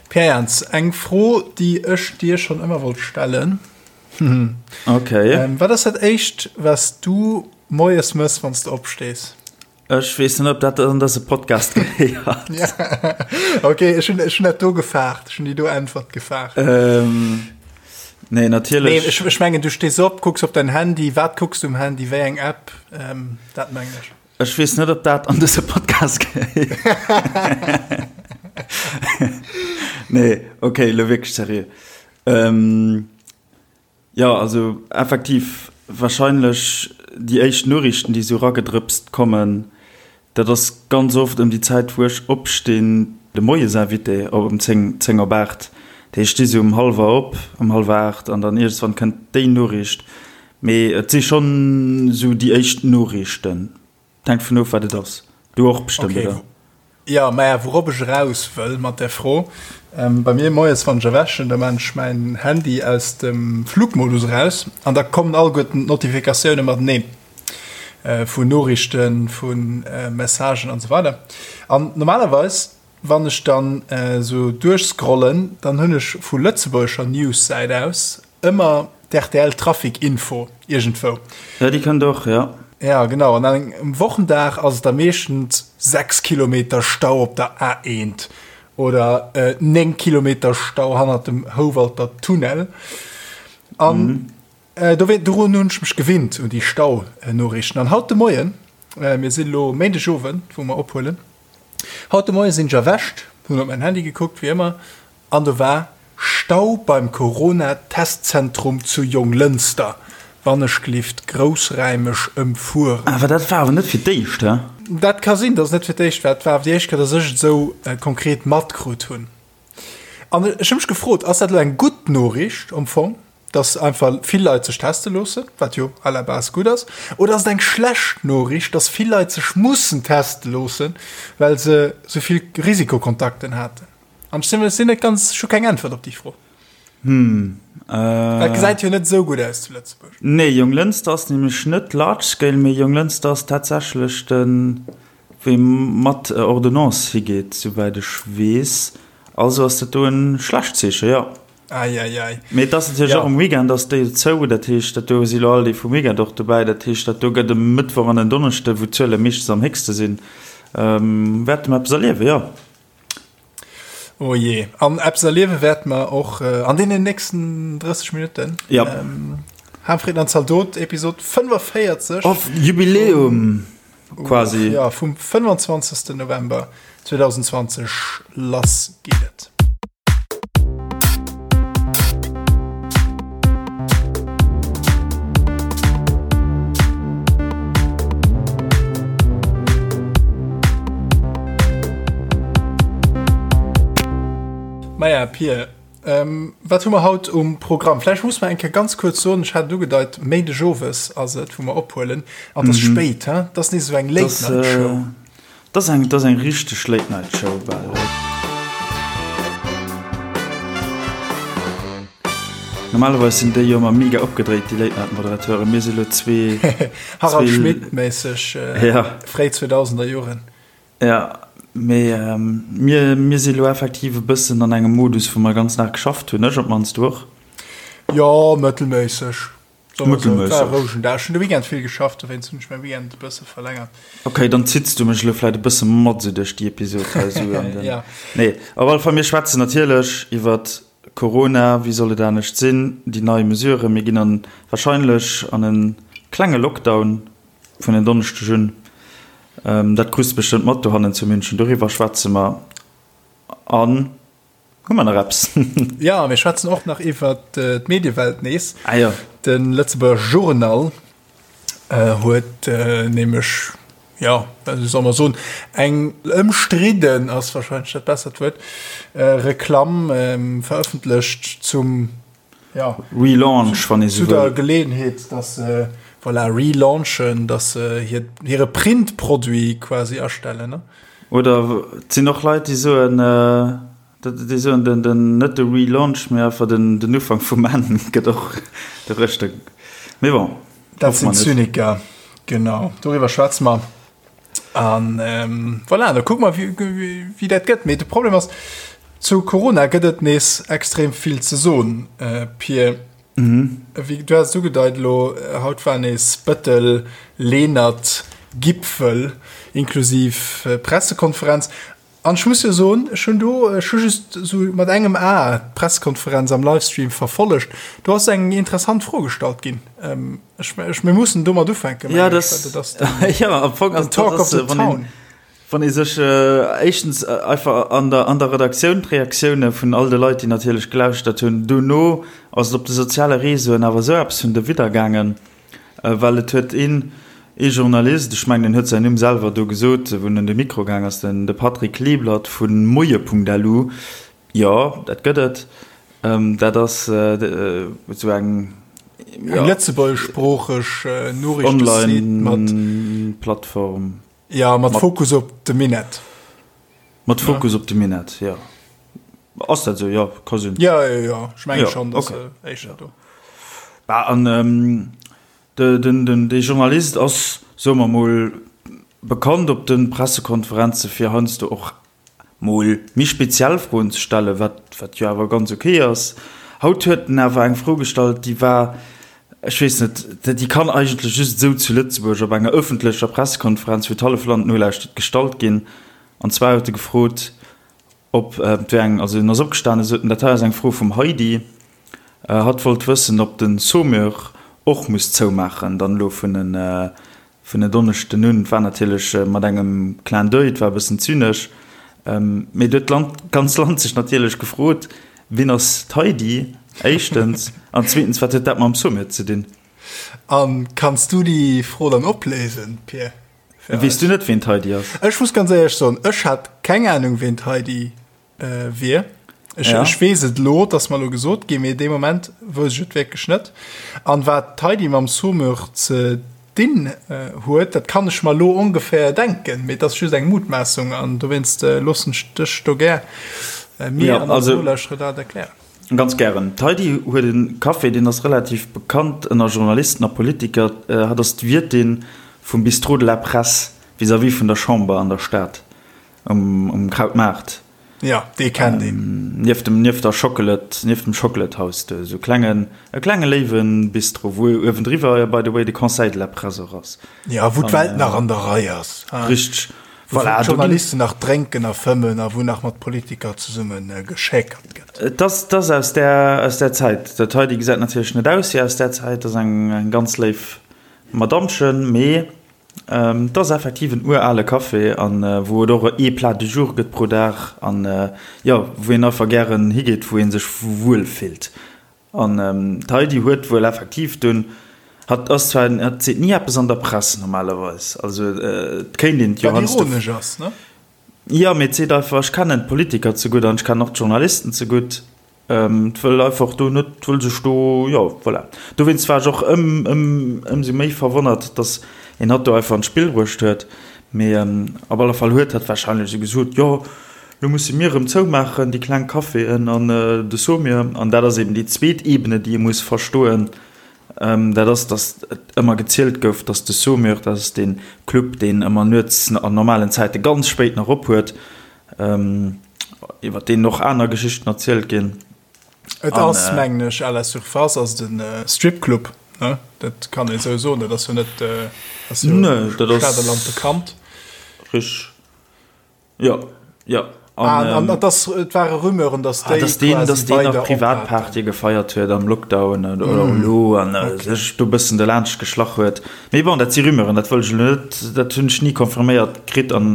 Pierre Jans, eng Fro, déi ech dir schonn ëmmer wollt stellen. Okay. Ähm, wat ass dat éischt, wat s du moies mëss, wann s du opstees? Ech weess net, ob dat an dëse Podcast gehéiert. Ja. Okay, ech hunn, ech hunn dat do gefaart. Ech hunn déi do Äntwert gefaart. Ähm, nee, natierlech. Nee, ech, ech mengen, du stees op, kucks op dein Handy. Wat kucks du um Handy? Wéi eng App? Ähm, dat mengen ech. Ech weess net, ob dat an dëse Podcast gehéiert. Nee, okay, elo wierklech seriö. Ähm, jo, also effektiv, wahrscheinlech déi éischt Noriichten, déi esou eragedrëpst kommen, dat ass ganz oft ëm déi Zäit, wou ech opstinn, de Moiesinvité op ëm 10, 10 op 8. Dat heescht, ech sti sou um hallwer op, um hallwer 8 an dann iergendswann kënnt déi Noriicht. Mee et si schonn esou déi éischt Noriichten. Et hänkt vun of, wat et ass. Du och bestëmmt, Okay. oder? Jo, maja, wourop ech eraus wëll mat där Fro, Bei mir moies, wann ech erwächen, da maan ech mäin Handy aus dem Flugmodus eraus an da kommen alleguerten d'Notifikatioune mateneen, vun Noriichten, vu Messagen an esou weider. An normalerweis, wann ech dann esou duerchscrollen, dann hunn ech vu lëtzebuergescher News-Säit aus Ëmmer d'RTL Trafic Info iergendwou. Ja, déi kënnt och, ja. Ja, genau. An engem Wochendag ass et da meeschtens 6 Kilometer Stau op der A1 oder 9 Kilometer Stau hannert dem Houwalter Tunnel. An dorun hunn ech mech gewinnt, un déi Stau-Noriichten. An haut de Moien, mir sinn elo Méindegowend, wou mer ophuelen, haut de Moie sinn ech erwächt, hunn op mäin Handy gekuckt, wéi ëmmer, An do war Stau beim Corona-Testzentrum zu Jonglënster, wannechglift groussräimeg ëmfueren. Awer dat war awer net fir d'éischt, he? Dat ka sinn, datt et net fir d'éischt war. Et war awer déi éischt Kéier, datt ech et esou konkret matkrut hunn. An ech hu mech gefrot, Ass dat elo eng gutt Noriicht am Fong, datt einfach vill Leit sech teste loossen, wat jo à la base gutt ass, oder ass et eng schlecht Noriicht, datt vill Leit sech mussen teste loossen, well se esou vill Risikokontakten haten? An ech sinn net ganz, ech hu keng Äntwert op déi Fro. Hm. Äh. Dat gesäit jo net esou gutt aus zu Lëtzebuerg. Nee, Jonglënster ass nämlech net large scale, mee Jonglënster ass tatsächlech den, wou ee mat Ordonnance higeet, souwäit ech weess. Also ass dat do e schlecht Zeechen, jo. Ei, ei, ei. Mee et ass natierlech och um Weekend ass déi zou, dat heescht, dat do si lo all déi vum Weekend och dobäi. Dat heescht, dat do gëtt e Mëttwoch an en Donneschde, wou d'Zuele meeschtens am héchste sinn, wäerte mer eppes erliewen, jo. Oh je. An eppes erliewe wäerte mer och äh, an deenen nächsten 30 Minutten. Ja. Ähm, Harmfried an Zaldot, Episod 45. Auf Jubiläum quasi. Ja, vum 25. November 2020. Lass geet et. Maja, Pir, ähm, wat hu mer haut um Programm? Vläicht muss mer eng Kéier ganz kuerz soen, ech hat et ugedeit, Méindeg owes ass et, wou mer ophuelen, an et ass mhm. spéit, he? Dat ass nees esou eng Late-Night-Show. Äh, dat ass eng, dat ass eng richteg Late-Night-Show bal. Normalerweis sinn déi jo ëmmer mega opgedréit, déi Late-Night-Moderateuren. Mir si lo zwee. Harald Schmidt-méisseg, äh, ja. fréi 2000er Joren. Ja, mee mir, mir si lo effektiv e bëssen an engem Modus, wou mer ganz nach geschafft hunn. Ech op d'mannst, du och? Jo, mëttelméisseg. Mëttelméisseg. War e rouegen Dag. Ech hunn de Weekend vill geschafft, dowéinst hunn ech mäi Weekend e bësse verlängert. Ok, dann zitts du mech elo vläit e bësse mat esou duerch déi Episod hei esou an den. Ja. Nee, op alle Fall, mir schwätzen natierlech iwwert Corona, wéi soll et anescht sinn, déi nei Mesuren. Mir ginn an, wahrscheinlech an e klenge Lockdown vun en Donneschdeg un. Dat krus de bestëmmt mat dohannen zu München. Doriwwer schwätze mer. An hu mer nach eppes? Jo, mir schwätzen och nach iwwer d'Mediewelt nees. Ah jo. De Lëtzebuerger Journal huet nämlech, jo, wéi soll mer soen, eng ëmstridden, ass warscheinlech dat bessert Wuert, Reklamm verëffentlecht zum ja, Relaunch, wann ee sou wëll. Zu der Geleeënheet, dass se, voilà, relaunchen, dass se hir, hire Printproduit quasi astellen, ne? Oder et sinn och Leit, déi soen, déi soen, den, den, net de Relaunch, mee einfach den, den Ufank vum Enn gëtt och de rëschte. Mee bon, Dat sinn Zyniker, genau. Doriwwer schwätze mer. An ähm, voilà, da kucke mer, wéi, wéi dat gëtt. Mee de Problem ass. Zu Corona gëtt et nees extrem vill ze soen, Pir. Wéi du has et ugedeit elo, haut war nees Bëttel, Lenert, Gipfel inklusiv Pressekonferenz. An ech muss jo soen, ech hunn do, ech hu just esou mat engem A d'Pressekonferenz am Livestream verfollegt, do ass eng interessant Fro gestallt ginn. Ech, ech, mir mussen domat ufänken, mengen ech, well dat ass den, jo, am Fong ass den Talk of the Town. Wann ee sech éischtens einfach an der, an der Redaktioun d'Reaktioune vun all de Leit, déi natierlech gelauschtert hunn, dono ass et op de soziale Réseauen awer esou eppes vun derwidder gaangen, well et huet een, ee Journalist, ech mengen en huet säin Numm selwer do gesot, wou en un de Mikro gaang ass, den de Patrick Kleeblatt vu moie.lu, jo, dat gëtt et, dat ass esou eng, jo. Eng lëtzebuergeschsproocheg Noriichtesite mat. Online-Plattform. Ja, mat Fokus op de Minett. Mat Fokus op de Minett, jo. Ass dat esou? Jo, ka sinn. Ja, ja, ja. Ech menge schonn, datt se éischter do. Bah, an de, den, den, dee Journalist ass, soe mer mol, bekannt op de Pressekonferenze fir heiansdo och mol méi speziell Froen ze stellen, wat, wat jo awer ganz ok ass. Haut huet en awer eng Fro gestallt, déi war, ech weess net, déi kann eigentlech just esou zu Lëtzebuerg op enger ëffentlecher Pressekonferenz, wou d'hallef Land nolauschtert, gestallt ginn. An zwar huet e gefrot, ob, et wär eng, also en ass opgestanen, sot en, dat hei ass eng Fro vum Heidi, hatt wollt wëssen, ob de Saumur och muss zoumaachen, dann elo vun en Vun en Donneschden un, et war natierlech mat engem Clin d'oeil, et war e bëssen zynesch, mee et huet d'Land, d'ganz Land sech natierlech gefrot, Wien ass d'Heidi, éischtens, an zweetens, wat huet dat mam Sommet ze dinn? A kanns du déi Fro dann opléisen, Pir? Weess du net, wien d'Heidi ass? Ech muss ganz éierlech soen, ech hat keng Anung, wien d'Heidi wier. Ech, ja. ech weess et lo, dass mer lo gesot ginn, mee dee Moment wousst ech et wierklech net. An wat d'Heidi mam Saumur ze dinn äh, huet, dat kann ech mer lo ongeféier denken, mee et ass just eng Mutmaassung an dowéinst äh, loossen ech dech do gär äh, mir ja, an also, Nolauschterer dat erklären. Ganz gären. D'Heidi huet e Café, deen ass relativ bekannt ënner Journalisten a Politiker. Äh, hatt ass d'Wiertin vum Bistrot de la Presse vis-à-vis vun der Chamber an der Stad. Um, um Krautmaart. Ja, dee kennt een. Nieft dem, nieft der Chocolate, nieft dem Chocolate House do, esou klengen, e klenge léiwe Bistro, wou uewendriwwer, by the way, de Conseil de la Presse och ass. Ja, wou d'Welt nach an der Rei ass. Richteg. Wou voilà, d'Journalisten nach drénken a fëmmen a wou nach mat Politiker zesumme geschäkert gëtt. Et ass, et ass aus där, aus där Zäit. Dat hei, déi gesäit natierlech net aus wéi aus där Zäit, ass eng, eng ganz léif Madammchen, mee Et ass effektiv en urale Café an wou et och ee Plat du jour gëtt pro Dag an jo wou een einfach gären higeet, wou ee sech wuel fillt. An d'Heidi huet wuel effektiv dunn, hatt ass zwar, hatt seet ni eppes an der Press normalerweis, also et kéint een et jo Wat ironesch ass, ne? Jo, mee et seet einfach, ech kennen d'Politiker ze gutt an ech kennen och d'Journalisten ze gutt. Et wëll einfach do net, wëll sech do, jo, voilà. Dowéinst war ech och ëm, ëm, ëmsou méi verwonnert, datt een hatt do einfach an d'Spill bruecht huet. Mee op alle Fall huet hatt warscheinlech esou gesot, jo, lo musse mir erëm zoumaachen, déi kleng Caféen an de Saumur. An dat ass eben déi zweet Ebene, déi ee muss verstoen, dat ass, datt et ëmmer gezielt gouf, datt de Saumur, dat ass dee Club, deen ëmmer nuets an normalen Zäite ganz spéit nach op huet, Iwwer deen och aner Geschichten erzielt ginn. Et ass, mengen ech, à la surface ass et en Stripclub, ne? Dat kann een esou soen, dat ass jo net, ass jo am Stater Land bekannt. Richteg, jo, jo. An, an et ass, et ware Rumeuren, datt déi quasi weider op haten. Nach Privatpartye gefeiert huet am Lockdown oder elo an sech do e bëssen derlaanscht geschlach huet. Mee bon, dat si Rumeuren, dat wëll ech elo net, dat hunn ech ni confirméiert kritt an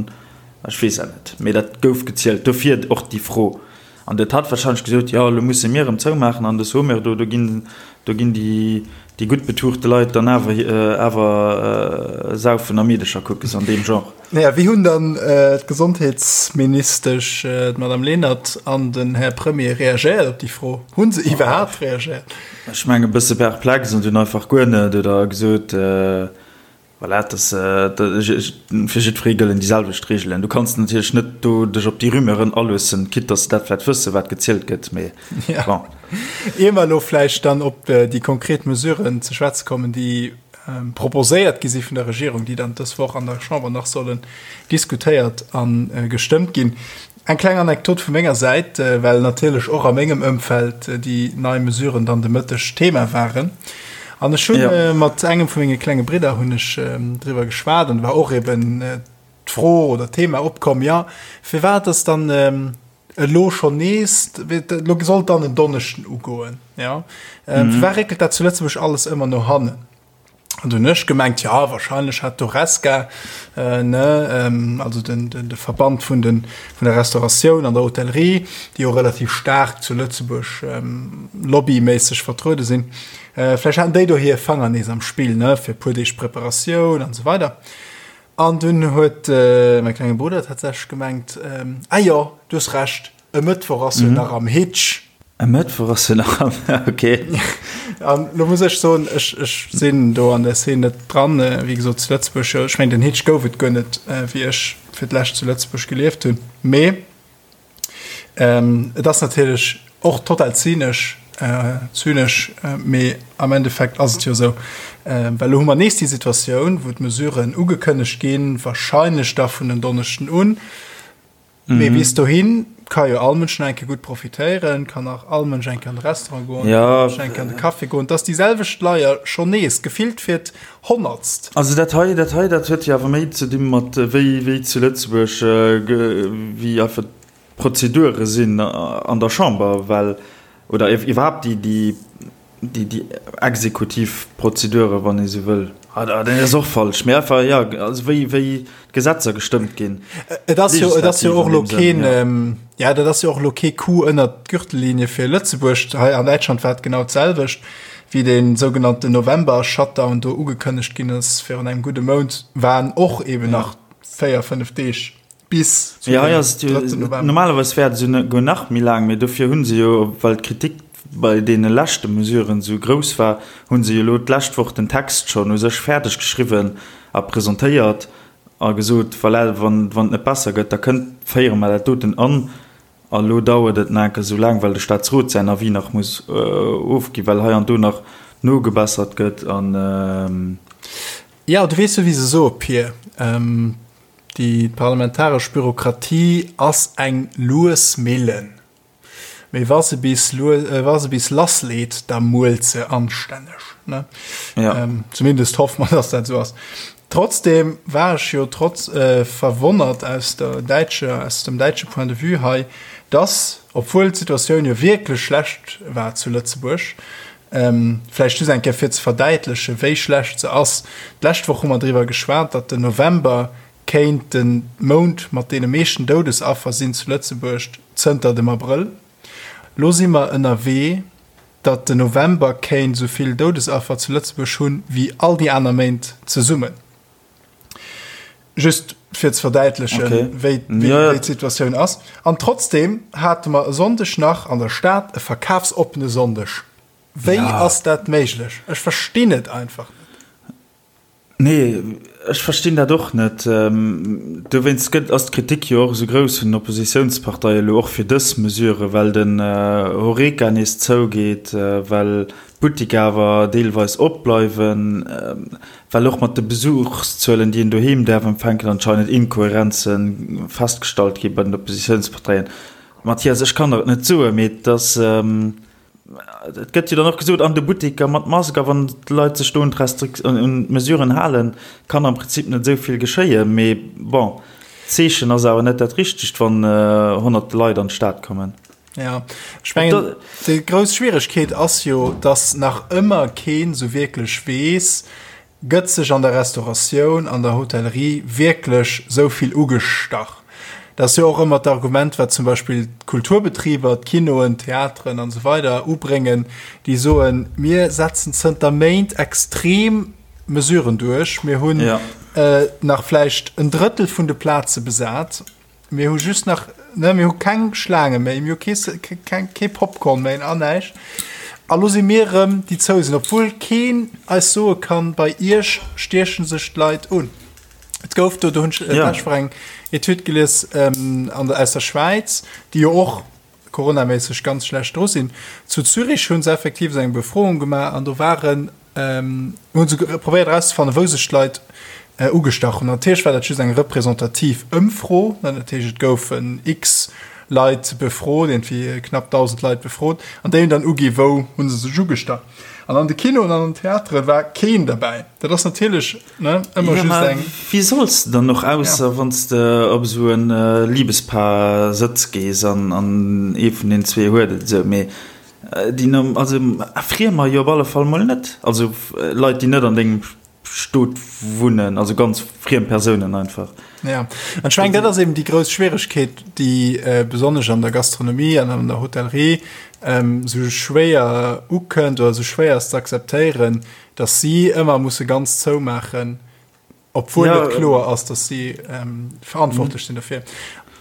Ech weess dat net, mee dat gouf gezielt. Dofir och déi Fro. An dat hat wahrscheinlech gesot, jo, elo musse mir erëm zoumaachen an de Saumur do, do ginn, do ginn déi, déi gutt betuchte Leit dann awer, awer saufen a Meedecher kucken, sou an deem Genre. Naja, wéi hunn dann d'Gesondheetsministesch, d'Madame Lenert, an den Här Premier reagéiert op déi Fro? Hu se iwwerhaapt reagéiert? Ech mengen e bësse perplex an dunn einfach guer net oder gesot, Voilà, dass, fir jiddweree gëllen déi selwecht Reegelen. Du kanns natierlech net do dech op déi Rumeuren aloossen, quitte dass se dat vläicht wëssen, wat gezielt gëtt, mee bon. Ier mer elo vläicht dann op déi konkret Mesuren ze schwätze kommen, déi. proposéiert gi si vun der Regierung, déi dann dës Woch an der Chamber nach sollen diskutéiert a gestëmmt ginn. Eng kleng Anekdot vu menger Säit, well natierlech och a mengem Ëmfeld déi nei Mesuren dann de Mëtteg Thema waren. An ech hunn mat engem vu menge klenge Bridder hunn ech driwwer geschwat an war och eben d'Fro oder d'Thema opkomm, jo firwat ass dann elo schonn nees, elo sollt dann en Donneschden ugoen, jo firwat réckelt dat zu Lëtzebuerg alles ëmmer no hannen? An du hunn ech gemengt, jo wahrscheinlech hat d'Horesca, ne, also den de Verband vun den vun der Restauratioun an der Hotellerie, déi jo relativ staark zu Lëtzebuerg lobbyméisseg vertruede sinn, vläicht haten déi do hir Fanger nees am Spill, ne, fir e puer Deeg Preparatioun an esou weider. An dunn huet mäi klenge Brudder tatsächlech gemengt, Ah jo, du hues Recht, e Mëttwoch ass jo nach am Hitch. E Mëttwoch ass jo nach am, ok. An lo muss ech soen, ech, ech sinn do an der Szene net dran, wéi gesot zu Lëtzebuerg, ech mengen den Hitch gouf et guer net, wéi ech fir d'lescht zu Lëtzebuerg gelieft hunn, mee Et ass natierlech och total zynesch, zynesch, mee am Endeffekt ass et jo esou, well elo hu mer nees déi Situatioun, wou d'Mesuren ugekënnegt ginn, wahrscheinlech da vun en Donneschden un, mee bis dohi ka jo all Mënsch nach eng Kéier gutt profitéieren, kann nach all Mënsch eng Kéier an de Restaurant goen, kann all Mënsch eng Kéier an de Café goen. Et ass déi selwecht Leier schonn nees, gefillt fir d'Honnertst. Also dat hei, dat hei, dat huet jo awer méi ze di mat wéi, wéi zu Lëtzebuerg, wéi einfach d'Prozedure sinn an der Chamber, well, oder iwwerhaapt déi, déi, déi, déi exekutiv Prozedure, wann ee sou wëll. Ah, dat ass och falsch, mee einfach, jo, also wéi, wéi d'Gesetzer gestëmmt ginn. Et ass jo, et ass jo och elo keen, ja, dat ass jo och elo kee Coup ënnert d'Gürtellinie fir Lëtzebuerg. Hei an Däitschland war et genau d'selwecht. Wéi dee sougenannten November-Shutdown do ugekënnegt ginn ass virun engem gudde Mount, waren och eben nach 4, 5 Deeg bis zu dem drëtten November. Normalerweis wär et esouguer nach méi laang, mee dofir hu se jo, well d'Kritik bei deene leschte Mesuren esou grouss war, hu se jo elo d'lescht Woch den Text schonn u sech fäerdeg geschriwwen a presentéiert a gesot, voilà, wann et net besser gëtt, da kënnt, féiere mer dat doten an. A lo dauert et nach enke sou laang, well de Staatsrot säin Avis nach muss ofginn, well hei an do nach nogebessert gëtt an. Jo, du weess jo, wéi se soe, Pir, déi parlamentaresch Bürokratie ass eng lues Millen, mee wa se bis wa se bis lassleet, da muelt se anstänneg, ne? Jo. Zumindest hoffe mer, dass dat esou ass. Trotzdem war ech jo trotz verwonnert aus der däitscher, aus dem däitsche Point de vue hei, dass, obwuel d'Situatioun jo wierklech schlecht war zu Lëtzebuerg, vläicht just eng Kéier fir ze verdäitlechen, wéi schlecht se ass, d'lescht Woch hu mer driwwer geschwat, datt den November kéint de Mount mat deene meeschten Doudesaffer sinn zu Lëtzebuerg zënter dem Abrëll. Lo si mer ënnerwee, datt den November kéint esou vill Doudesaffer zu Lëtzebuerg hunn, wéi all déi aner Méint zesummen. Just fir ze verdäitlechen, okay. wéi, wéi, ja, ja. wéi d'Situatioun ass. An trotzdem hate mer e Sonndeg nach an der Stad e verkafsoppene Sonndeg. Wéi ja. ass dat méiglech? Ech verstinn et einfach net. Nee, ech verstinn dat och net. Dowéinst gëtt, ass d'Kritik jo och esou grouss vun den Oppositiounsparteie elo och fir dës Mesure, well den Horeca nees zougeet, well d'Buttiker awer deelweis opbleiwen, well och mat de Besuchszuelen, déi een doheem däerf empfänken, anscheinend Inkohärenze festgestallt gi bei den Oppositiounsparteien. Mathias, ech kann der et net soen, mee et ass. Et gëtt jo dann och gesot, an de Butteker mat Mask, a wann d'Leit sech do un d'Mesuren halen, kann am Prinzip net esou vill geschéien. Mee bon, d'Zeechen ass awer net dat richtegt, wann honnerte Leit an d'Stad kommen. Jo, ech mengen, déi grouss Schwieregkeet ass jo, datt nach ëmmer keen esou wierklech weess, Gëtt sech an der Restauratioun, an der Hotellerie wierklech sou vill ugestach? Dat ass jo och ëmmer d'Argument, wat zum Beispill d'Kulturbetriber, d'Kinoen, d'Theateren an esou weider ubréngen, déi soen, mir setzen zënter Méint extrem Mesuren duerch, mir hunn nach vläicht en Drëttel vun de Plaze besat, Mir hu just nach, ne, mir hu keng Schlaange méi, mir hu kee, keng, kee Popcorn méi an näischt. A lo si mir erëm déi zou sinn, obwuel keen eis soe kann, bei iech stieche sech d'Leit un. Et gouf do, do hunn ech ja. d'lescht Woch eng Etüd gelies ähm, an der, aus der Schwäiz, déi jo och coronaméisseg ganz schlecht dru sinn. Zu Zürich hu se effektiv esou eng Befroung gemaach an do waren. Hu se probéiert erauszefannen, wou sech d'Leit ugestach hunn. Natierlech war dat just eng representativ Ëmfro, dat heescht et goufen x Leit befrot, iergendwéi knapp 1.000 Leit befrot, an déi hunn dann ugi wou hu se sech ugestach. An an de Kinoen an an den Theatere war keen derbäi. Dat ass natierlech, ne, ëmmer just eng. Wéi solls de dann och, ausser wann s de op esou e Libespaar-Sëtz gees an ee vun den zwee huet et esou. Mee Déi no, also Friemer jo op alle Fall mol net, also Leit déi net an dengem Stot wunnen, also ganz friem Persounen einfach. Ja, an ech mengen dat ass eben déi grouss Schwieregkeet, déi besonnesch an der Gastronomie an an der Hotellerie esou schwéier ukënnt oder esou schwéier ass ze akzeptéieren, datt si ëmmer musse ganz zoumaachen, Obwuel ja, et kloer ass, dass si ähm, verantwortlech sinn dofir.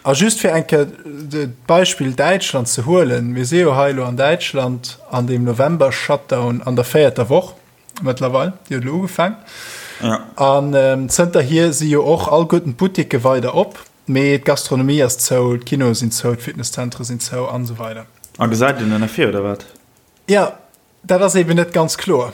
A just fir eng Kéier d'Beispill Däitschland ze huelen, mir si jo hei elo an Däitschland an dem November-Shutdown an der véierter Woch mëttlerweil, déi huet elo ugefaang. Ja. An ähm, zënterhier si jo och alleguerten d'Butticke weider op, mee d'Gastronomie ass zou, d'Kinoe sinn zou, d'Fitnesszentre sinn zou an esou weider. A gesäit een dann ervir oder wat? Ja, Dat ass eben net ganz kloer.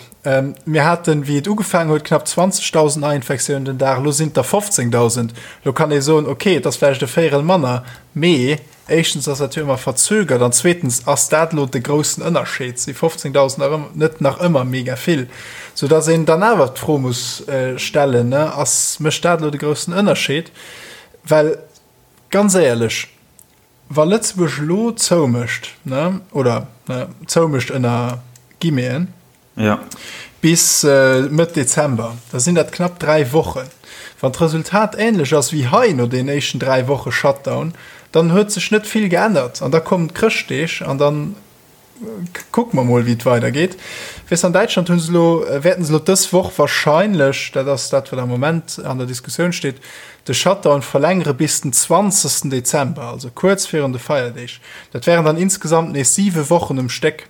Mir haten, wéi et ugefaangen huet, knapp 20.000 Neiinfektiounen den Dag, elo sinn et der 15.000. Elo kann ee soen, okay, et ass vläicht e Véierel manner, mee éischtens ass dat jo ëmmer verzögert an zweetens ass dat elo de groussen Ënnerscheed, si 15.000 nach ëmmer net nach ëmmer mega vill, soudass een dann awer d'Fro muss stellen, ass, mécht dat elo de groussen Ënnerscheed? Well ganz éierlech, Wa Lëtzebuerg elo zoumécht, ne, oder ne, zoumécht ënner Guillemeten, ja. bis Mëtt Dezember, da sinn dat knapp 3 Wochen. Wann d'Resultat änlech ass wéi hei no den éischten 3 Woche Shutdown, dann huet sech net vill geännert an da kommen d'Chrëschtdeeg an dann Kucke mer mol, wéi et weidergeet. Weess, an Däitschland hu se elo, wäerten se elo dës Woch wahrscheinlech, dat ass dat, wat am Moment an der Diskussioun steet, de Shutdown verlängere bis den 20. Dezember, also kuerz virun de Feierdeeg. Dat wären dann insgesamt nees siwe Wochen um Stéck.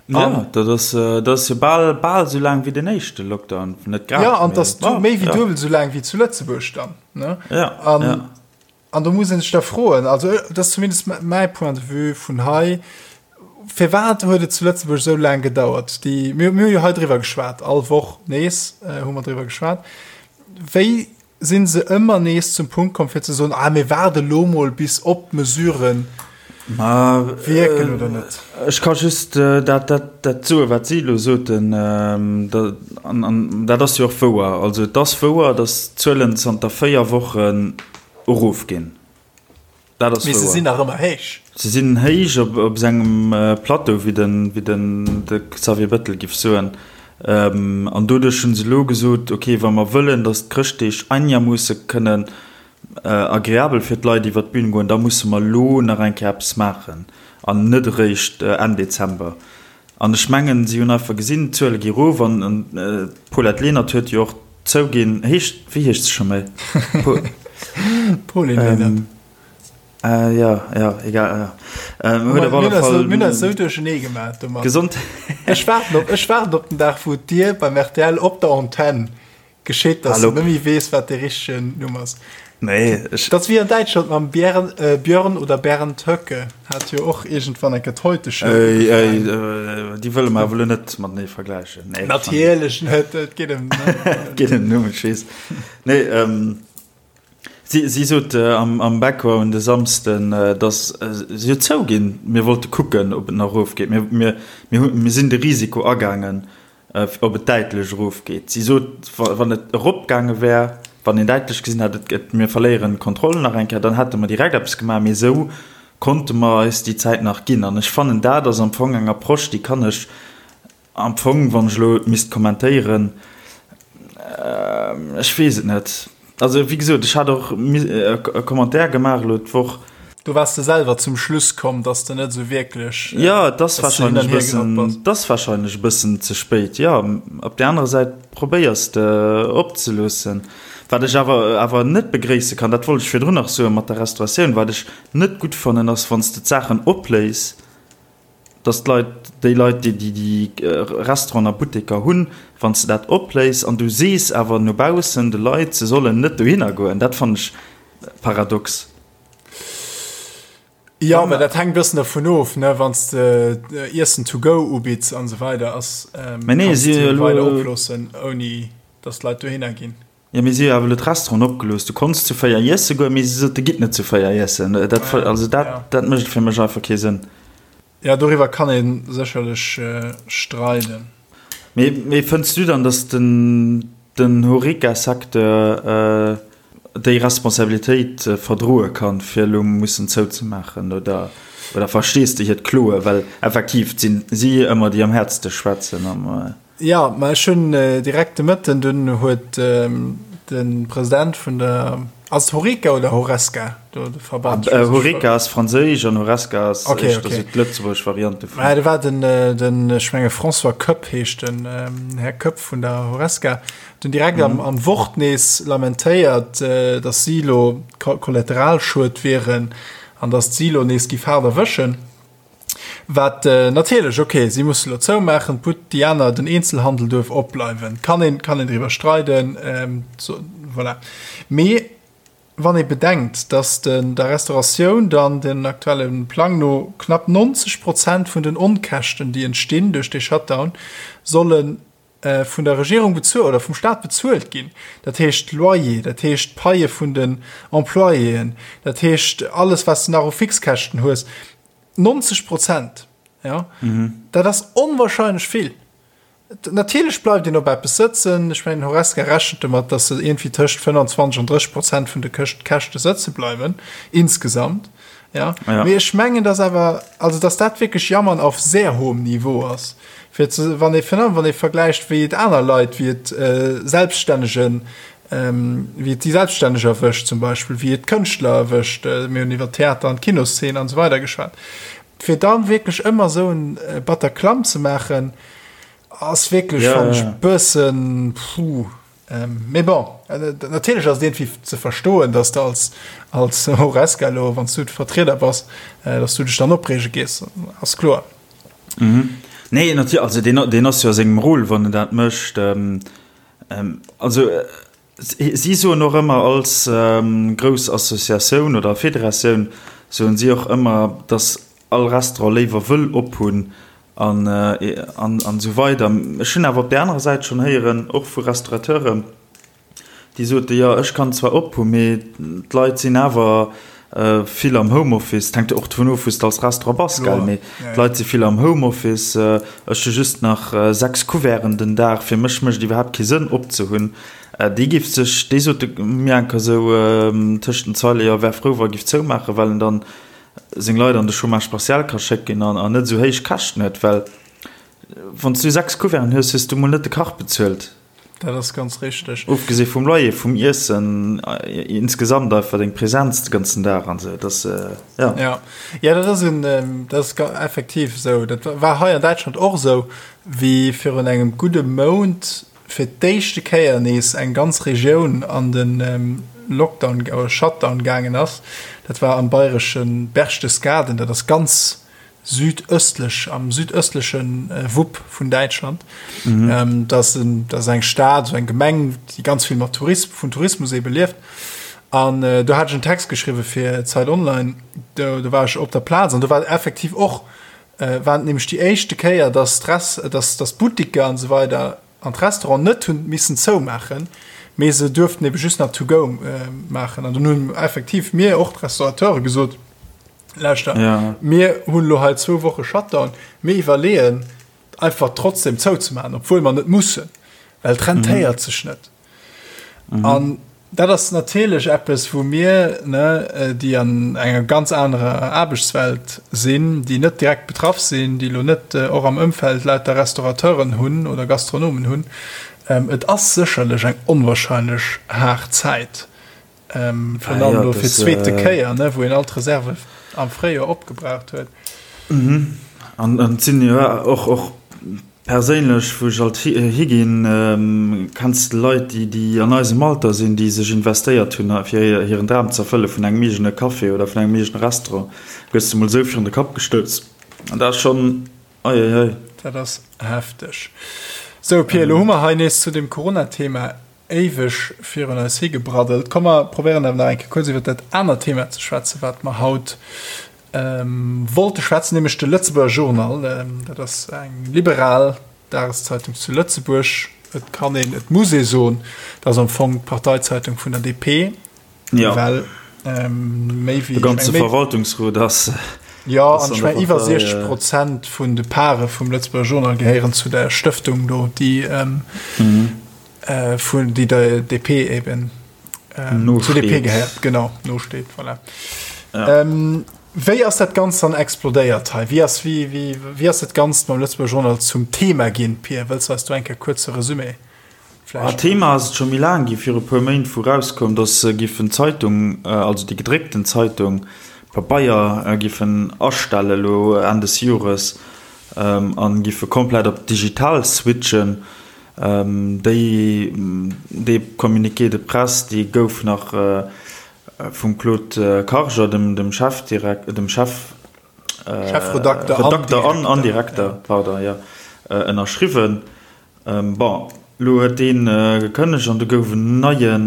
Jo, dat ass, dat ass jo bal, bal esou laang wéi den éischte Lockdown, net grad, Jo, an et ass méi wéi duebel esou laang wéi zu Lëtzebuerg dann, ne? Ja, ja. An do muss ee sech da froen, also dat ass zumindest mäi Point de vue vun hei, firwat huet et zu Lëtzebuerg esou laang gedauert? Déi, mir hu jo hei driwwer geschwat, all Woch nees hu mer driwwer geschwat. Wéi si se ëmmer nees zum Punkt komm fir ze soen, ah mir waarde lo mol bis ob d'Mesurë wierken oder net? Ech ka just dat, dat, dat soen, wat si elo soten, an, an dat ass jo och wouer. Also et ass wouer, datt d'Zuelen zanter 4 Wochen erofginn. Dat ass wouer. Mee se sinn nach ëmmer héich. Se sinn héich op, op sengem Plateau, wéi den, wéi den de Xavier Bettel giff soen. An doduerch hu se elo gesot, okay, wa mer wëllen, datt d'Chrëschtdeeg einermoosse kënnen agreabel fir d'Leit iwwer d'Bün goen, da musse mer elo nach eng Kéier eppes maachen an net eréischt Enn Dezember. An ech mengen, si hunn einfach gesinn, d'Zuele gi erof an d'Paulette Lenert huet jo och zouginn, heescht, wéi heescht se scho méi? Pauline Lenert. Jo, jo, egal, jo. Huet op alle Fall. Mir hunn eis esou duerchenee gemaach domat. Gesond. Ech waarden op, ech waarden op den Dag, wou Dir beim rtl op der Antenn Geschitt, dass du net méi weess, wat dee richtegen Numm ass. Nee, ech. Dat ass wéi an Däitschland mam Bjern, äh, Björn oder Bernd Höcke. Hat jo och iergendwann eng Kéier d'Heute-Show Ey, ey, äh, déi wëlle mer awer elo net matenee vergläichen. Nee, Natierlech net, et geet ëm. Et geet ëm Numm, ech weess. Nee, ähm, si, si sot äh, am, am Background de Samsden, äh, dass äh, si huet zouginn, mir wollte kucken, ob et nach erofgeet. Mir, mir, mir, hu, mir sinn de Risiko agaangen. ob et däitlech erofgeet. Si sot, wann et eropgaange wär, wann een däitlech gesinn hätt, et mir verléieren d'Kontroll nach eng Kéier, dann hätte mer direkt eppes gemaach. Mee esou konnte mer eis déi Zäit nach ginn. An ech fannen, dat ass am Fong eng Approche, déi kann ech am Fong, wann ech elo et misst kommentéieren, ech weess et net, Also wéi gesot, ech hat och e Commentaire gemaach elo d'Woch. Do waars de selwer zum Schluss komm, dass de net esou wierklech. Jo, et ass warscheinlech e bëssen, et ass warscheinlech e bëssen ze spéit, jo. Op där anerer Säit probéiers de opzeloossen. Wat ech awer awer net begréisse kann, dat wollt ech virdrun nach soen, mat der Restauratioun, wat ech net gutt fannen, ass wann s de d'Saachen opléis, dass d'Leit, déi Leit, déi déi Restauranten a Butteker hunn, wann s de dat opléis an du sees awer no baussen de Leit, se sollen net dohinner goen, dat fannen ech paradox. Jo, mä dat hänkt e bëssen dervun of, ne, wann s de Iessen to go ubitts an esou weider, ass, Mä nee, kanns si de elo. weider oploossen, ouni datt d'Leit dohinner ginn. Jo, mee si hu awer elo d'Restauranten opgelooss. Du konns zu 4 iesse goen, mee si sote, gitt net zu 4 iessen. Dat, also dat, dat mécht fir mech einfach kee Sënn. Jo, doriwwer kann ee sécherlech streiden. Mee, mee fënns du dann, datt den, den Horeca-Secteur déi Responsabilitéit verdroe kann, fir elo mussen zouzemaachen? Oder, oder verstees de hiert Kloen? Well effektiv, et sinn si ëmmer, déi am häertste schwätzen am. Jo, ma ech hunn direkt de Mëtten, dunn huet de President vun der, ass et Horeca oder Horesca, do de Verband? Horeca ass franséisch an Horesca ass Okay, éischter okay. sou d'lëtzebuergesch Variant dovun. Mä do war den, den, ech menge François Koepp heescht den Här Koepp vun der Horesca, huet dunn direkt am, am Wort nees lamentéiert, datt si elo Kollateralschued wieren an datt si elo nees giff haart erwëschen. Wat natierlech, ok, si musse lo zoumaachen, d'But, déi aner, den Eenzelhandel duerf opbleiwen. Kann een, kann een driwwer streiden, so, voilà. Mee wann ee bedenkt, datt den, der Restauratioun dann den aktuelle Plang no knapp 90 Prozent vun den Onkäschten, déi entstinn duerch dee Shutdown, solle vun der Regierung bezuelt oder vum Staat bezuelt ginn, dat heescht Loyer, dat heescht d'Paie vun den Employéen, dat heescht alles, wat s de nach u Fixkäschten hues, 90 Prozent, ja, dat ass onwahrscheinlech vill. Natierlech bleift een op eppes sëtzen. Ech mengen, Horesca rechent domat, datt se iergendwéi tëscht 25 an 30 Prozent vun de Käschte sëtze bleiwen, insgesamt. Ja. Ja. Mee ech mengen, dass awer, also dass dat wierklech Jammern auf sehr hohem Niveau ass. Fir ze, wann ee, virun allem wann ee vergläicht, wéi et aner Leit, wéi et äh, Selbststännegen, ähm, wéi et déi Selbststänneg erwëscht zum Beispill, wéi et d'Kënschtler erwëscht, äh, mir hunn iwwer Theater an d'Kinoszene an esou weider geschwat. Fir da wierklech ëmmer esou en äh, Bataclan ze maachen, ass wierklech, Ja, fannen ja, ech, ja. bëssen, puh. Mee bon, natierlech ass et iergendwéi ze verstoen, dass de als, als Horesca elo, wann s du de Vertrieder bass, dass du dech dann opreege gees, ass kloer. Nee, natierlech, also deen, deen ass jo a sengem Rôle, wann en dat mécht. Also si soen och ëmmer als grouss Associatioun oder Federatioun, soen si och ëmmer, dass all Restaurant léiwer wëll ophunn An esou weider. Ech hunn awer op där anerer Säit schonn héieren, och vu Restaurateuren, déi soten, jo ech kann zwar op hu mee d'Leit sinn awer vill am Homeoffice. Et hänkt jo och dovun of, wou s de als Restaurant bass, gell, mee d'Leit si vill am Homeoffice. Ech hu just nach 6 Couverten den Dag, fir mech mécht et iwwerhaapt kee Sënn opzehunn. Dee géif sech, dee sot mir enker esou tëscht den Zeile, jo wär frou wa e géif zoumaachen, well en dann seng Leit an de Chômage partiel ka schécken an net esou héich Käschten huet, well wann s du 6 Couverten hues, hues du mol net de Kach bezuelt. Dat ass ganz richteg. Ofgesi vum Loyer, vum Iessen, insgesamt einfach deng Präsenz de ganzen Dag an esou, dat ass, jo. Ja, ja, dat ass en, dat ass effektiv esou. Dat war hei an Däitschland och esou, wéi virun engem gudde Mount fir d'éischte Kéier nees eng ganz Regioun an de Lockdown oder Shutdown gaangen ass. Dat war am bayresche Berchtesgaden, dat ass ganz südöstlech, am südöstleche Wupp vun Däitschland. Mhm. Dat ass en, dat ass eng Stad, esou eng Gemeng, déi ganz vill mat Tourism, vun Tourismus ebe lieft. An do hat ech en Text geschriwwe fir Zeit Online, do, do war ech op der Plaz an do war effektiv och War et nämlech déi éischte Kéier, dass d'Rest, dass, dass d'Buttiker an esou weider an d'Restauranten net hunn missen zoumaachen, mee se duerften ebe just nach to go maachen. An dunn hunn effektiv mir, och d'Restaurateure gesot, Lauschter, Ja. mir hunn elo hei zwou Woche Shutdown, mir iwwerleeën einfach trotzdem zouzemaachen, obwuel mer net mussen, well et rentéiert sech net. An dat ass natierlech eppes, wou mir, ne, déi an enger ganz anerer Aarbechtswelt sinn, déi net direkt betraff sinn, déi elo net och am Ëmfeld lauter Restaurateuren hunn oder Gastronomen hunn, et ass sécherlech eng onwahrscheinlech haart Zäit, virun allem elo fir d'zweete Kéier, ne, wou een all d'Reserve am Fréijoer opgebraucht huet. An et sinn jo och, och Perséinlech, wou ech alt higinn, kenns de Leit, déi an eisem Alter sinn, déi sech investéiert hunn, fir hiren Dram ze erfëlle vun engem eegene Café oder vun engem eegene Restaurant, gëss de mol esou virun de Kapp gestouss. An dat ass schonn, ei, ei, ei. Dat ass hefteg. Sou, Pir, elo hu mer hei nees zu dem Corona-Thema éiweg virun eis higebraddelt. Komm, mer probéieren awer nach eng Kéier kuerz iwwer dat anert Thema ze schwätzen, wat mer haut. Wollte schwätzen, nämlech de Lëtzebuerger Journal. Dat ass eng liberal Dageszeitung zu Lëtzebuerg. Et kann een, et muss ee soen, dat ass am Fong d'Parteizeitung vun der DP, ja. well méi wéi de ganze Verwaltungsrot ass. Jo, an ech mengen iwwer 60 Prozent vun de Pare vum Lëtzebuerger Journal gehéieren zu der Stëftung do, déi vun déi der DP eben ähm, zu DP gehéiert genau nosteet voilà. ja. ähm, Wéi ass dat Ganzt dann explodéiert hei? Wéi ass, wéi, wéi, wéi ass dat Ganzt mam Lëtzebuerger Journal zum Thema ginn? Pir, wëlls du eis do eng Kéier kuerze Resumé vläicht? Ah, Thema ass et scho méi laang gi, viru puer Méint, wou rauskoum, datt se giffen d'Zeitung, also déi gedréckten Zeitung, Pabeier, giffen astelle lo Enn des Jores an giffe komplett op digital switchen. Déi, dee Communiqué de presse, dee gouf nach vum Claude Karger, dem, dem Chefdirek-, dem Chef, Chefredakter an Redakter an, an Direkter, pardon, jo, ënnerschriwwen. Bon, elo huet dee gekënnegt an do gouf en neien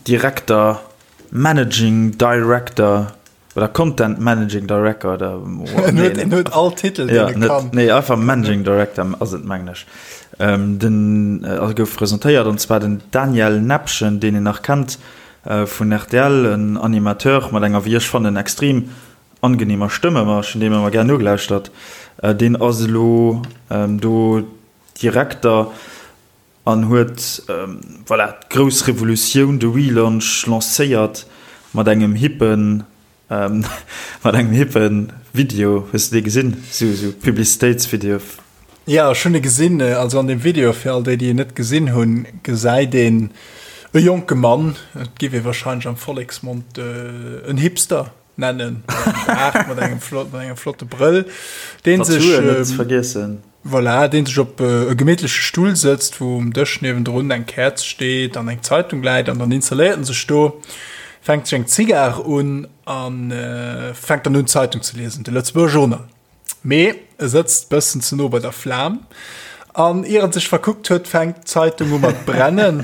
Direkter, Managing Director, Oder Content Managing Director oder En huet, en huet all Titel, deen e kann. Nee, einfach Managing Director ass et, mengen ech. Den also gouf presentéiert, an zwar den Daniel Nepgen, deen een nach kennt vun rtl, en Animateur mat enger, wéi ech fannen, extrem angenehmer Stëmme, ma ech hunn deem ëmmer gär nogelauschtert. Deen ass elo do Direkter. An huet, voilà, d'grouss Revolutioun, de Relaunch lancéiert mat engem hippen, mat engem hippen Video. Hues de dee gesinn? Sou, sou Publicitéitsvideo. Jo, ech hunn e gesinn. Also an deem Video, fir all déi, déi en net gesinn hunn, gesäit een e jonke Mann, et giff ee wahrscheinlech am Volleksmond en Hipster nennen, mat engem Baart, mat engem flott, mat engem flotte Brëll, deen sech, Tattooen net ze vergiessen. Voilà, deen sech op e gemittleche Stull sëtzt, wou um Dësch niewendrun eng Käerz steet an eng Zeitung läit an dann installéiert en sech do, fänkt sech eng Zigar un a fänkt dann un d'Zeitung ze liesen, de Lëtzebuerger Journal. Mee e sëtzt bëssen ze no bei der Flam an ier en sech verkuckt huet, fänkt d'Zeitung u mat brennen.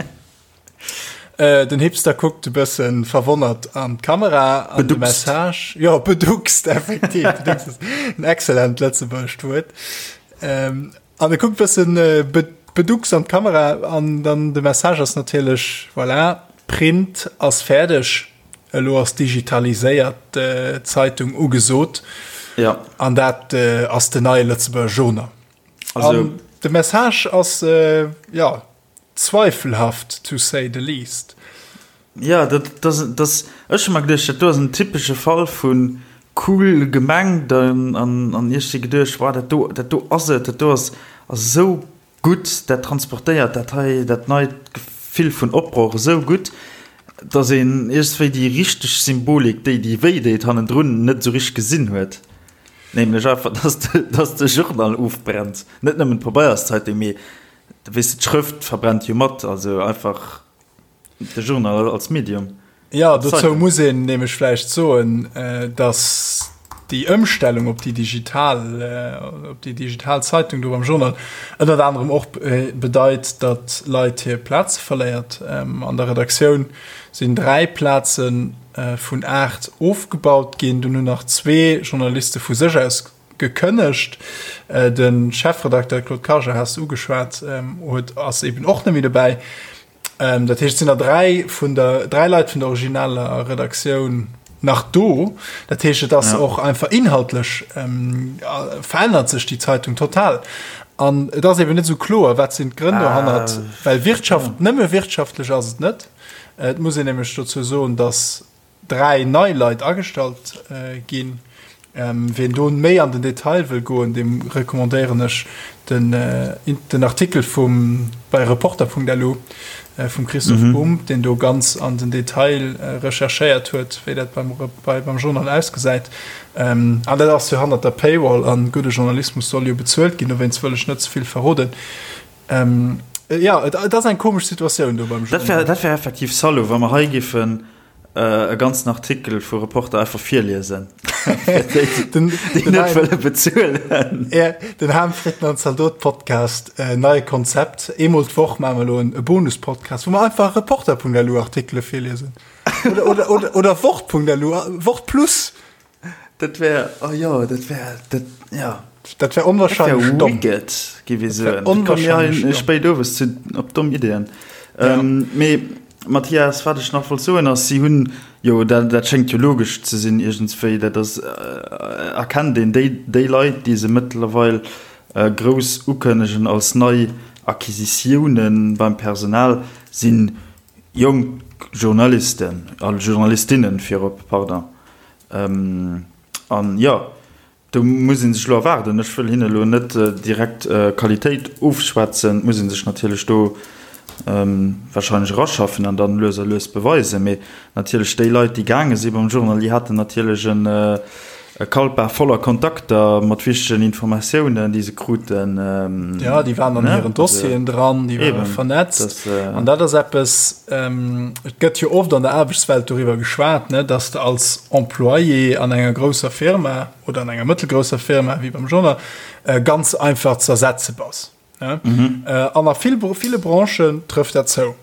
Äh, den Hipster kuckt e bëssen verwonnert an d'Kamera an de Message. Jo, beduckst, effektiv. Beduckst ass en excellent lëtzebuergescht Wuert. Ähm, an e kuckt bëssen äh, beduckst an d'Kamera an dann de Message ass natierlech, voilà, Print ass fäerdeg, elo ass digitaliséiert äh, Zeitung ugesot. Ja. An dat äh, ass den neie Lëtzebuerger Journal. Also, an de Message ass, äh, ja, Zweifelhaft, to say the least. Jo, dat ass, ech hu mer geduecht, dat do ass en typesche Fall vu cool gemengt an ech si geduecht, wow, dat do, dat do ass et, dat do ass esou gutt, dat transportéiert dat hei, dat neit Gefill vun Opbroch esou gutt, datt een iergendwéi déi richteg Symbolik, déi déi wéi deet hannendrun, net esou richteg gesinn huet. Nämlech einfach, datt de Journal ofbrennt, net nëmmen d'Pabeierszeitung, mee Weess de, d'Schrëft verbrennt jo mat, also einfach de Journal als Medium. Jo, dozou muss een nämlech vläicht soen, datt déi Ëmstellung op déi digital, op déi digital Zeitung do beim Journal ënnert anerem och bedeit, datt Leit hir Plaze verléiert. An der Redaktioun sinn 3 Plaze vun 8 ofgebaut ginn. Dunn hunn nach zwee Journaliste vu sech aus Gekënnegt. De Chefredakteur Claude Karger has de ugeschwat, huet ass eben och net méi dobäi. Dat heescht, et sinn der 3 vun der 3 Leit vun der originaler Redaktioun nach do. Dat heescht, et ass och einfach inhaltlech verännert sech déi Zeitung total. An et ass eben net esou kloer, wat sinn d'Grënn dohannert, well Wirtschaft, nëmme wirtschaftlech ass et net. Et muss een nämlech dozou soen, datt 3 nei Leit agestallt ginn. Ween do méi an den Detail wëll goen, deem recommandéieren ech den den Artikel vum bei Reporter.lu vum Christoph Bumb, deen do ganz an den Detail recherchéiert huet, wéi dat beim bei beim Journal ausgesäit. An dat ass jo hannert der Paywall an gudde Journalismus soll jo bezuelt ginn, dowéinst wëll ech net ze vill verroden. Jo, et ass eng komesch Situatioun do beim Journal. Dat wär effektiv Salaud, wa mer hei giffen. e ganzen Artikel vu Reporter einfach virliesen. Fir déi, déi net wëlle bezuelen. Ja, den Ham Fritten an Zaldot Podcast, äh, neie Konzept. Eemol d'Woch maache mer elo en e Bonus-Podcast, wou mer einfach Reporter.lu Artikele virliesen. Oder, oder, oder, oder Wort.lu, Wort Plus. Dat wär, oh jo, dat wär, dat, ja. Dat wär onwahrscheinlech domm. Wicked, géif ech soen. Onwahrscheinlech domm. Spéit owes zu, op domm Ideeën. Ja. Ähm, mee, Mathias, wat ech nach wollt soen ass, si hunn, jo, dat, dat schéngt jo logesch ze sinn iergendswéi, dat ass, äh, erkennt een, déi, déi Leit, déi se mëttlerweil äh, grouss ukënnegen als nei Acquisitiounen beim Personal, sinn jonk Journalisten a Journalistinnen virop, pardon. An jo, do muss ee sech elo erwaarden. Ech wëll hinne elo net direkt Qualitéit ofschwätzen. Et muss ee sech natierlech do warscheinlech eraschaffen an dann lues a lues beweisen. Mee natierlech déi Leit, déi gaange si beim Journal, déi haten natierlech e Kalpa voller Kontakter mat wichtegen Informatiounen, déi se kruten. Jo, déi waren an hiren Dossieren dran, déi ware vernetzt. An dat ass eppes, et gëtt jo oft an der Aarbechtswelt doriwwer geschwat, ne, dass de als Employé an enger grousser Firma oder an enger mëttelgrousser Firma wéi beim Journal ganz einfach ze ersetze bass. An a ville Branchen trëfft dat zou.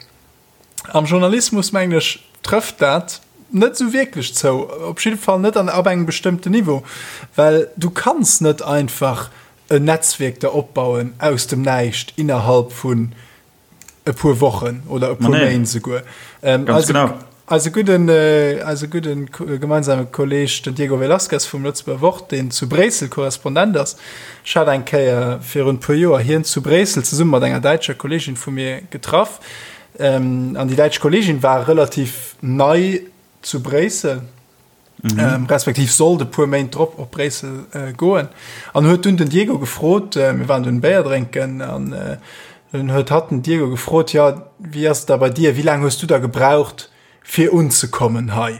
Am Journalismus, mengen ech, trëfft dat net esou wierklech zou, op jidde Fall net an ab engem bestëmmten Niveau, well du kanns net einfach en Netzwierk der opbauen aus dem Näischt innerhalb vun e puer Wochen oder e puer Méint esouguer. Ganz genau. Eise gudden, eise gudden gemeinsame Kolleg, den Diego Velazquez vum Lëtzebuerger Wort, deen zu Bréissel Korrespondent ass, ech hat eng Kéier virun e puer Joer hien zu Bréissel zesumme mat enger däitscher Kollegin vu mir getraff. An déi däitsch Kollegin war relativ nei zu Bréissel, respektiv sollt e puer Méint drop op Bréissel goen an huet dunn den Diego gefrot, mir waren dunn Béier drénken an dunn huet hatt den Diego gefrot, jo, wéi ass et da bei dir, wéi laang hues du da gebraucht fir unzekommen hei,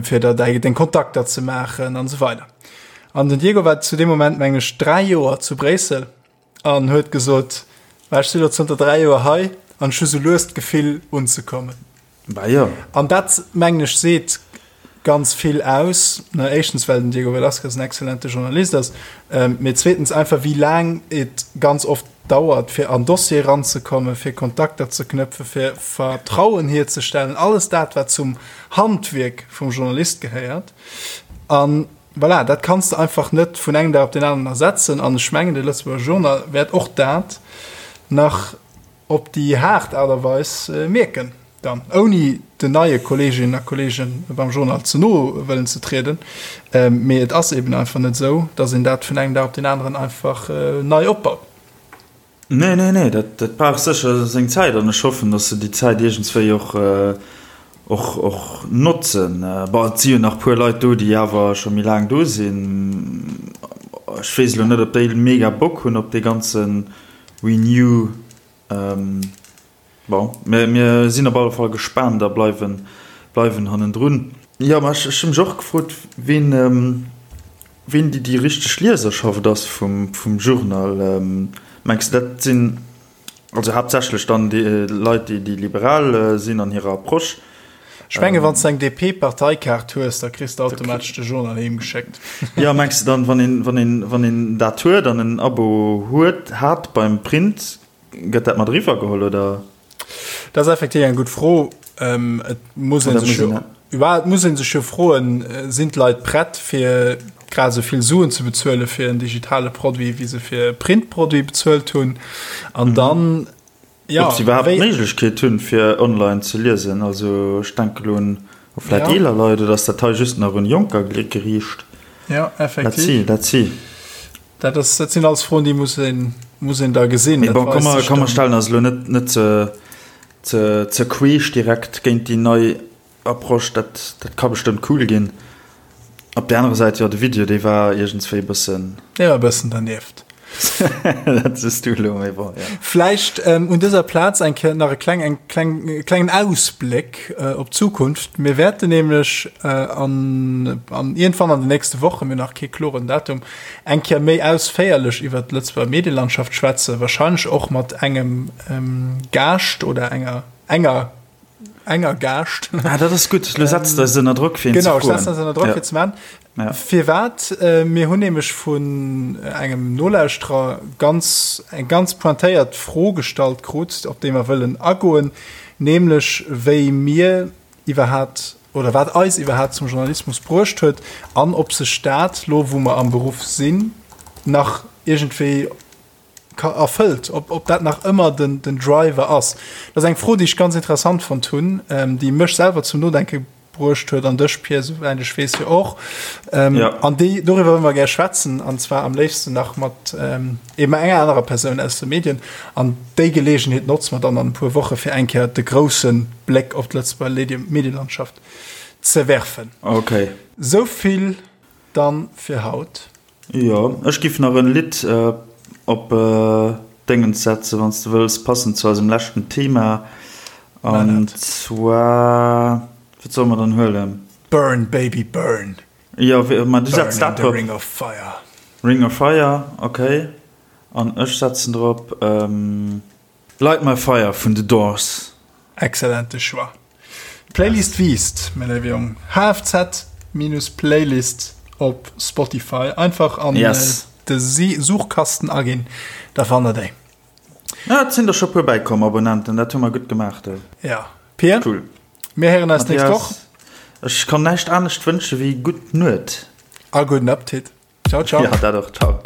fir da däi deng Kontakter ze maachen an esou weider. An den Diego war zu deem Moment, meng ech, 3 Joer zu Bréissel An huet gesot, Ma ech si lo zënter 3 Joer hei an ech hu sou lues d'Gefill unzekommen. Bah jo. An dat, mengen ech, seet ganz vill aus. Ne, éischtens, well den Diego Velazquez en exzellente Journalist ass, mee zweetens einfach, wéi laang et ganz oft dauert, fir an Dossier eranzekommen, fir Kontakter ze knëpfen, fir Vertrauen hierzestellen, alles dat, wat zum Handwierk vum Journalist gehéiert. An Voilà, dat kanns de einfach net vun engem Dag op deen aneren ersetzen. An ech mengen, de Lëtzebuerger Journal wäert och dat nach op déi haart Aart a Weis mierken dann, ouni den neie Kolleeginnen a Kolleege beim Journal ze no wëllen ze trieden. Mee et ass eben einfach net esou, datt een dat vun engem Dag op deen aneren einfach nei opbaut. Nee, nee, nee, dat, dat brauch sécher seng Zäit an ech hoffen, datt se déi Zäit iergendswéi och, och, och notzen. Bon, et si jo nach puer Leit do, déi awer scho méi laang do sinn. Ech weess elo net, ob déi mega Bock hunn op dee ganze Renew. Bon, mir, mir sinn op alle Fall gespaant a bleiwen, bleiwen hannendrun. Jo, mä ech, ech hu mech och gefrot, ween, Ween déi déi richteg Lieserschaft ass vum vum Journal, mengs de dat sinn also haaptsächlech dann déi Leit déi déi liberal sinn an hirer Approche? Ech menge wann s de eng DP-Parteikaart hues, da kriss de automatesch de Journal heem geschéckt. Jo, mengs de dann wann een wann een wann een dat huet an en Abo huet hat beim Print, gëtt dat mat eriwwer geholl oder? Dat ass effektiv eng gutt Fro. Et muss ee sech jo, et muss ee sech jo froen, sinn d'Leit prett fir grad esou vill Suen ze bezuele fir en digitale Produit, wéi se fir e Printproduit bezuelt hunn? An dann, jo, Ob se iwwerhaapt d'Méiglechkeet hunn, fir online ze liesen. Also ech denke elo un vläicht eeler Leit, oder ass dat hei just nach un Jonker geriicht? Jo, effektiv. Let's see, let's see. Dat ass, dat sinn alles Froen, déi muss een, muss een da gesinn. Mee bon, komm mer, komm mer stellen eis elo net, net ze, ze, ze queesch direkt géint déi nei Approche. Dat, dat ka bestëmmt cool ginn. Op där anerer Säit, jo, de Video, dee war iergendswéi e bëssen. Dee war e bëssen dernieft. Dat sees du elo, mee bon, jo. Vläicht un dëser Plaz eng Kéier nach e kleng, eng kleng, e klengen Ausbléck op d'Zukunft. Mir wäerten nämlech an, an iergendwann an den nächste Wochen, mir hunn nach kee kloren Datum, eng Kéier méi ausféierlech iwwert d'Lëtzebuerger Medielandschaft schwätzen, wahrscheinlech och mat engem Gaascht oder enger enger. enger Gaascht. Ah, dat ass gutt. Lo setz de eis ënner Drock, fir een ze Genau, ech froen. setzen eis ënner Drock, Ja. fir ze maachen. Ja. Firwat? Mir hunn nämlech vun engem Nolauschterer ganz, eng ganz pointéiert Fro gestallt krut, op déi mer wëllen agoen, nämlech wéi mir iwwerhaapt oder wat eis iwwerhaapt zum Journalismus bruecht huet an ob sech dat, lo wou mer am Beruff sinn, nach iergendwéi erfëllt, ob, ob dat nach ëmmer den, den Driver ass. Dat ass eng Fro, déi ech ganz interessant fonnt hunn, déi mech selwer zum Nodenke bruecht huet an dech, Pir, souwäit ech weess, jo och. Ähm, ja. An déi, doriwwer wëlle mer gär schwätzen, an zwar am léifsten nach mat ähm, eben enger anerer Persoun aus de Medien. An déi Geleegenheet notze mer dann an e puer Woche fir eng Kéier de grousse Bléck op d'Lëtzebuerger Medielandschaft ze werfen. Okay. Sou vill dann fir haut. Jo, ech giff nach en Lidd op Déngens setzen, wanns de wëlls, passend zu eisem leschten Thema. An zwar, wat solle mer dann huelen? Burn Baby Burn. Jo, ma du setz dat drop. Ring of Fire. Ring of Fire, ok. An ech setzen drop Light My Fire vun The Doors. Excellente Choix. D'Playlist wiisst, mäi léiwe Jong. HFZ-Playlist op Spotify. Einfach an yes. de Suchkasten aginn, da fannt der déi. Ja, et sinn der scho puer bäikomm, Abonnenten, dat hu mer gutt gemaach do. Ja. Pir, cool. Mir héieren eis nächst Woch. Ech kann näischt anescht wënsche wéi gutt Nuet. A gudden Appetit. Ciao, ciao. Ja, dat och. Ciao.